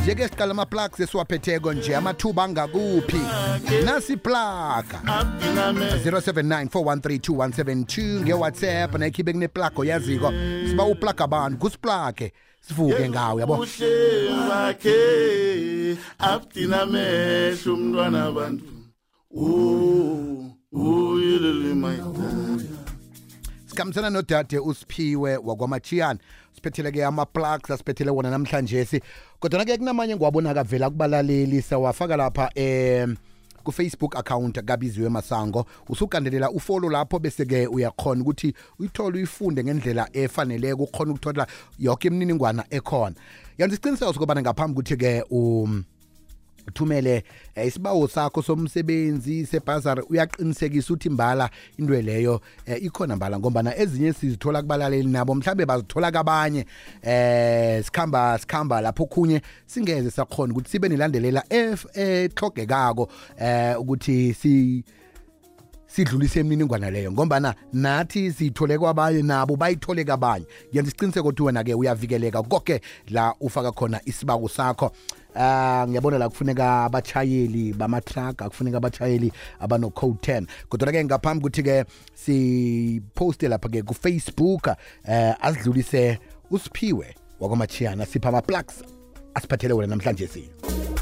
Njeke siqala ama-plugs esiwaphetheko nje amathuba angakuphi nasi plug 0794132172 nge-WhatsApp nayikhiphe kune-plug oyaziko siba uplug abantu kusiplage sivuke ngawo yabo bakhe abdina mehlo umntwana abantu uyilele mayidala sikhambisana nodade uSiphiwe wakwamachiyana siphetheleke ama-plugs asiphethele wona namhlanje kodwa-ke kunamanye ngiwabona kavela kubalaleli sawafaka lapha ku-Facebook account kaBiziwe Masango usugandelela ufollow lapho bese-ke uyakhona ukuthi uyithole uyifunde ngendlela efaneleko ukhona ukuthola yonke imininingwana ekhona yenza isiqiniseko sokubana ngaphambi ukuthi-ke uthumele isibawo sakho somsebenzi sebhazari uyaqinisekisa ukuthi mbala into leyo ikhona ngombana ezinye sizithola kubalaleli nabo mhlambe bazithola kabanye sikhamba lapho khunye singeze sakhona ukuthi sibe nilandelela ehlogekako ukuthi sidlulise imininingwana leyo ngombana nathi siyithole kwabanye nabo bayithole kabanye yenza isiqiniseko ukuthi wena-ke uyavikeleka konke la ufaka khona isibawo sakho ngiyabona la kufuneka abatshayeli bama-truck akufuneka abatshayeli abano-code 10 kodwa-ke ngaphambi ukuthi-ke siposte lapha-ke ku-Facebook asidlulise uSiphiwe wakwamachiyana sipha ama-plugs asiphathele wena namhlanje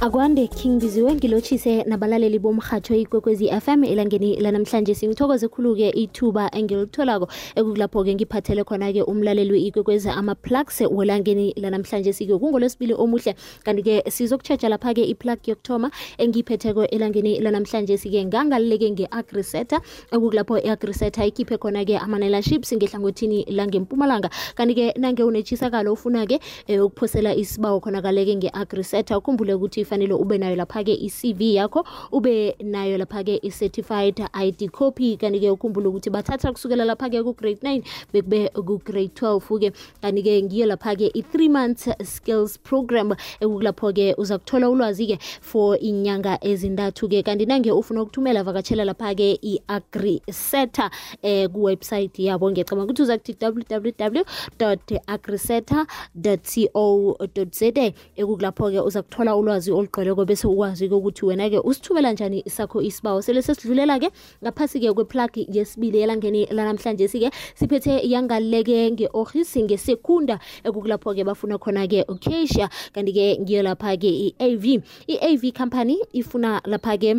akwande King Biziwe ngilotshise nabalaleli bomrhatsho ikwekwezi FM elangeni lanamhlanje ngithokoze khulu-ke ithuba engilitholako ekukulapho-ke ngiphathele khona-ke umlaleli we-ikwekwezi ama-plugs welangeni lanamhlanje kungolwesibili omuhle kanti-ke sizokutshetsha lapha-ke iplug yokuthoma engiyiphetheko elangeni lanamhlanje ngangalileke nge-agriseta ekukulapho i-agriseta ikhiphe khona-ke ama-nailerships ngehlangothini langempumalanga kanti-ke nange unetshisakalo ufuna-ke ukuphosela isibawo khona-kaleke nge-agriseta ukhumbule ukuthi fanele ube nayo lapha-ke i-CV yakho ube nayo lapha-ke i-certified ID copy kanti-ke ukhumbule ukuthi bathatha kusukela lapha-ke ku-grade 9 bekube ku-grade 12-ke kanti-ke ngiyo lapha-ke i-3 months skills program ekukulapho-ke uza kuthola ulwazi-ke for inyanga ezintathu-ke kanti nange ufuna ukuthumela vakatshela lapha-ke i-agriseta kuwebsite yabo ngiyacabanga ukuthi uza kuthi www.agriseta.co.za ekukulapho-ke uza kuthola ulwazi olugcweleko bese ukwazi ukuthi wena-ke usithumela njani sakho isibawo sele sesidlulela-ke ngaphasi-ke kweplug yesibili elangeni lanamhlanje siphethe yangaleke nge-Orhis ngesekunda ekukulapho-ke bafuna khona-ke uCasia kanti-ke ngiyo lapha-ke i-AV company ifuna lapha-ke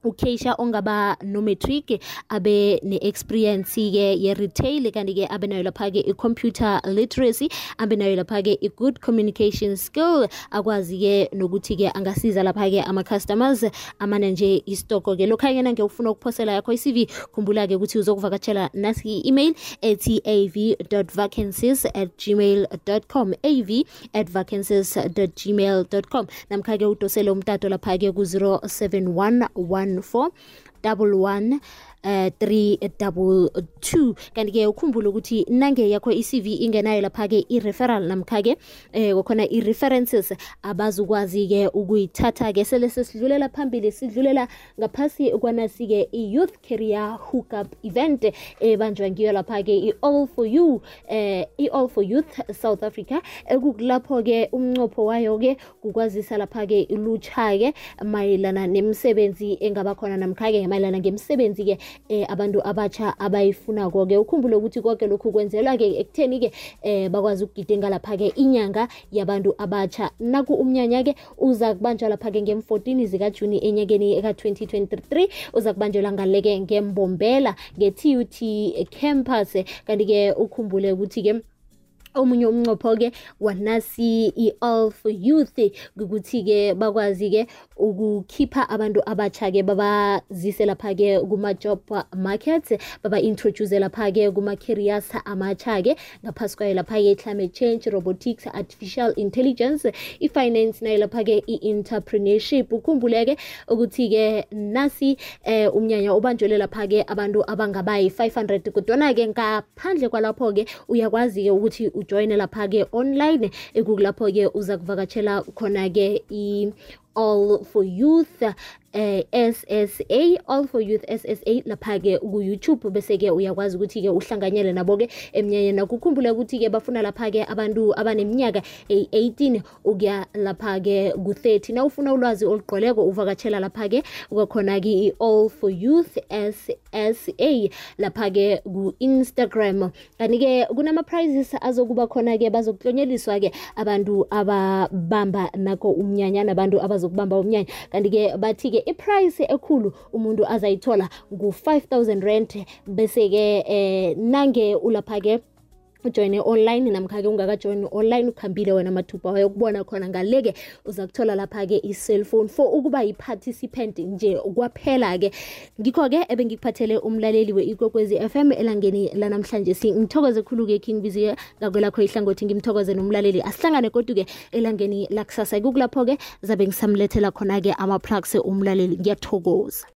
uCasia ongaba no-matric abe ne-experience-ke ye-retail kanti-ke abe nayo lapha-ke i-computer literacy abe nayo lapha-ke i-good communication skill akwazi-ke nokuthi-ke angasiza lapha-ke ama-customers amane nje istoko-ke lokha-ke nange ufuna ukuphosela yakho i-CV khumbula-ke ukuthi uzokuvakatshela nasi i-email ethi av.vacancies@gmail.com av@vacancies.gmail.com namkha-ke udosele umtato lapha-ke ku-07114 322 kanti-ke ukhumbule ukuthi nange yakho i-CV ingenayo lapha-ke i-referral namkha-ke kokhona i-references abazukwazi-ke ukuyithatha-ke sele sesidlulela phambili sidlulela ngaphasi kwanasi-ke i-youth career hookup event ebanjwa ngiyo lapha-ke i-all for youth South Africa ekukulapho-ke umnqopho wayo-ke kukwazisa lapha-ke ilutsha-ke mayelana nemisebenzi engaba khona namkha-ke mayelana ngemisebenzi-ke abantu abatsha abayifunako-ke ukhumbule ukuthi konke lokhu kwenzelwa-ke ekutheni-ke bakwazi ukugidinga lapha-ke inyanga yabantu abatsha naku umnyanya-ke uza kubanjwa lapha-ke ngem-14 zikaJuni enyakeni ka-2023 uza kubanjelwa ngaleke ngembombela nge-TUT campus kanti-ke ukhumbule ukuthi-ke omunye umnqopho-ke wanasi i-all for youth ukuthi-ke bakwazi-ke ukukhipha abantu abatsha-ke babazise lapha-ke kuma-job market baba-introduce lapha-ke kuma-careers amatsha-ke ngaphasi kwayo lapha-ke i-climate change, robotics, artificial intelligence, i-finance nayo lapha-ke i-entrepreneurship ukhumbuleke ukuthi-ke nasi umnyanya ubanjelwe lapha-ke abantu abangabayi 500 kodwana-ke ngaphandle kwalapho-ke uyakwazi-ke ukuthi ujoyine lapha-ke online ekukulapho-ke uza kuvakatshela khona-ke all for youth SSA, All for Youth SSA, lapha-ke ku-YouTube, bese-ke uyakwazi ukuthi-ke uhlanganyele nabo-ke emnyanyeni. Nakukhumbule ukuthi-ke bafuna lapha-ke abantu abaneminyaka 18 ukuya lapha-ke ku-30. Na ufuna ulwazi olugqweleko uvakatshela lapha-ke kwakhona-ke i-All for Youth SSA lapha-ke ku-Instagram. Kanti-ke kunama-prizes azokuba khona-ke, bazokuhlonyeliswa-ke abantu ababamba nako umnyanya nabantu abazokubamba umnyanya. Kanti-ke bathi-ke i-price ekhulu umuntu azayithola ngu-5,000 rand, bese-ke nange ulapha-ke ujoyine online namkha-ke ungakajoyini online ukhambile wena mathupha wayokubona khona ngaleke uza kuthola lapha-ke i-cellphone for ukuba yi-participant nje kwaphela-ke. Ngikho-ke ebengikuphathele umlaleli we-Ikwekwezi FM elangeni lanamhlanje. Ngithokoze khulu-ke King Biziwe ngakwelakho ihlangothi, ngimthokoze nomlaleli. Asihlangane kodwa-ke elangeni lakusasa kukulapho-ke zabe ngisamlethela khona-ke ama-plugs umlaleli. Ngiyathokoza.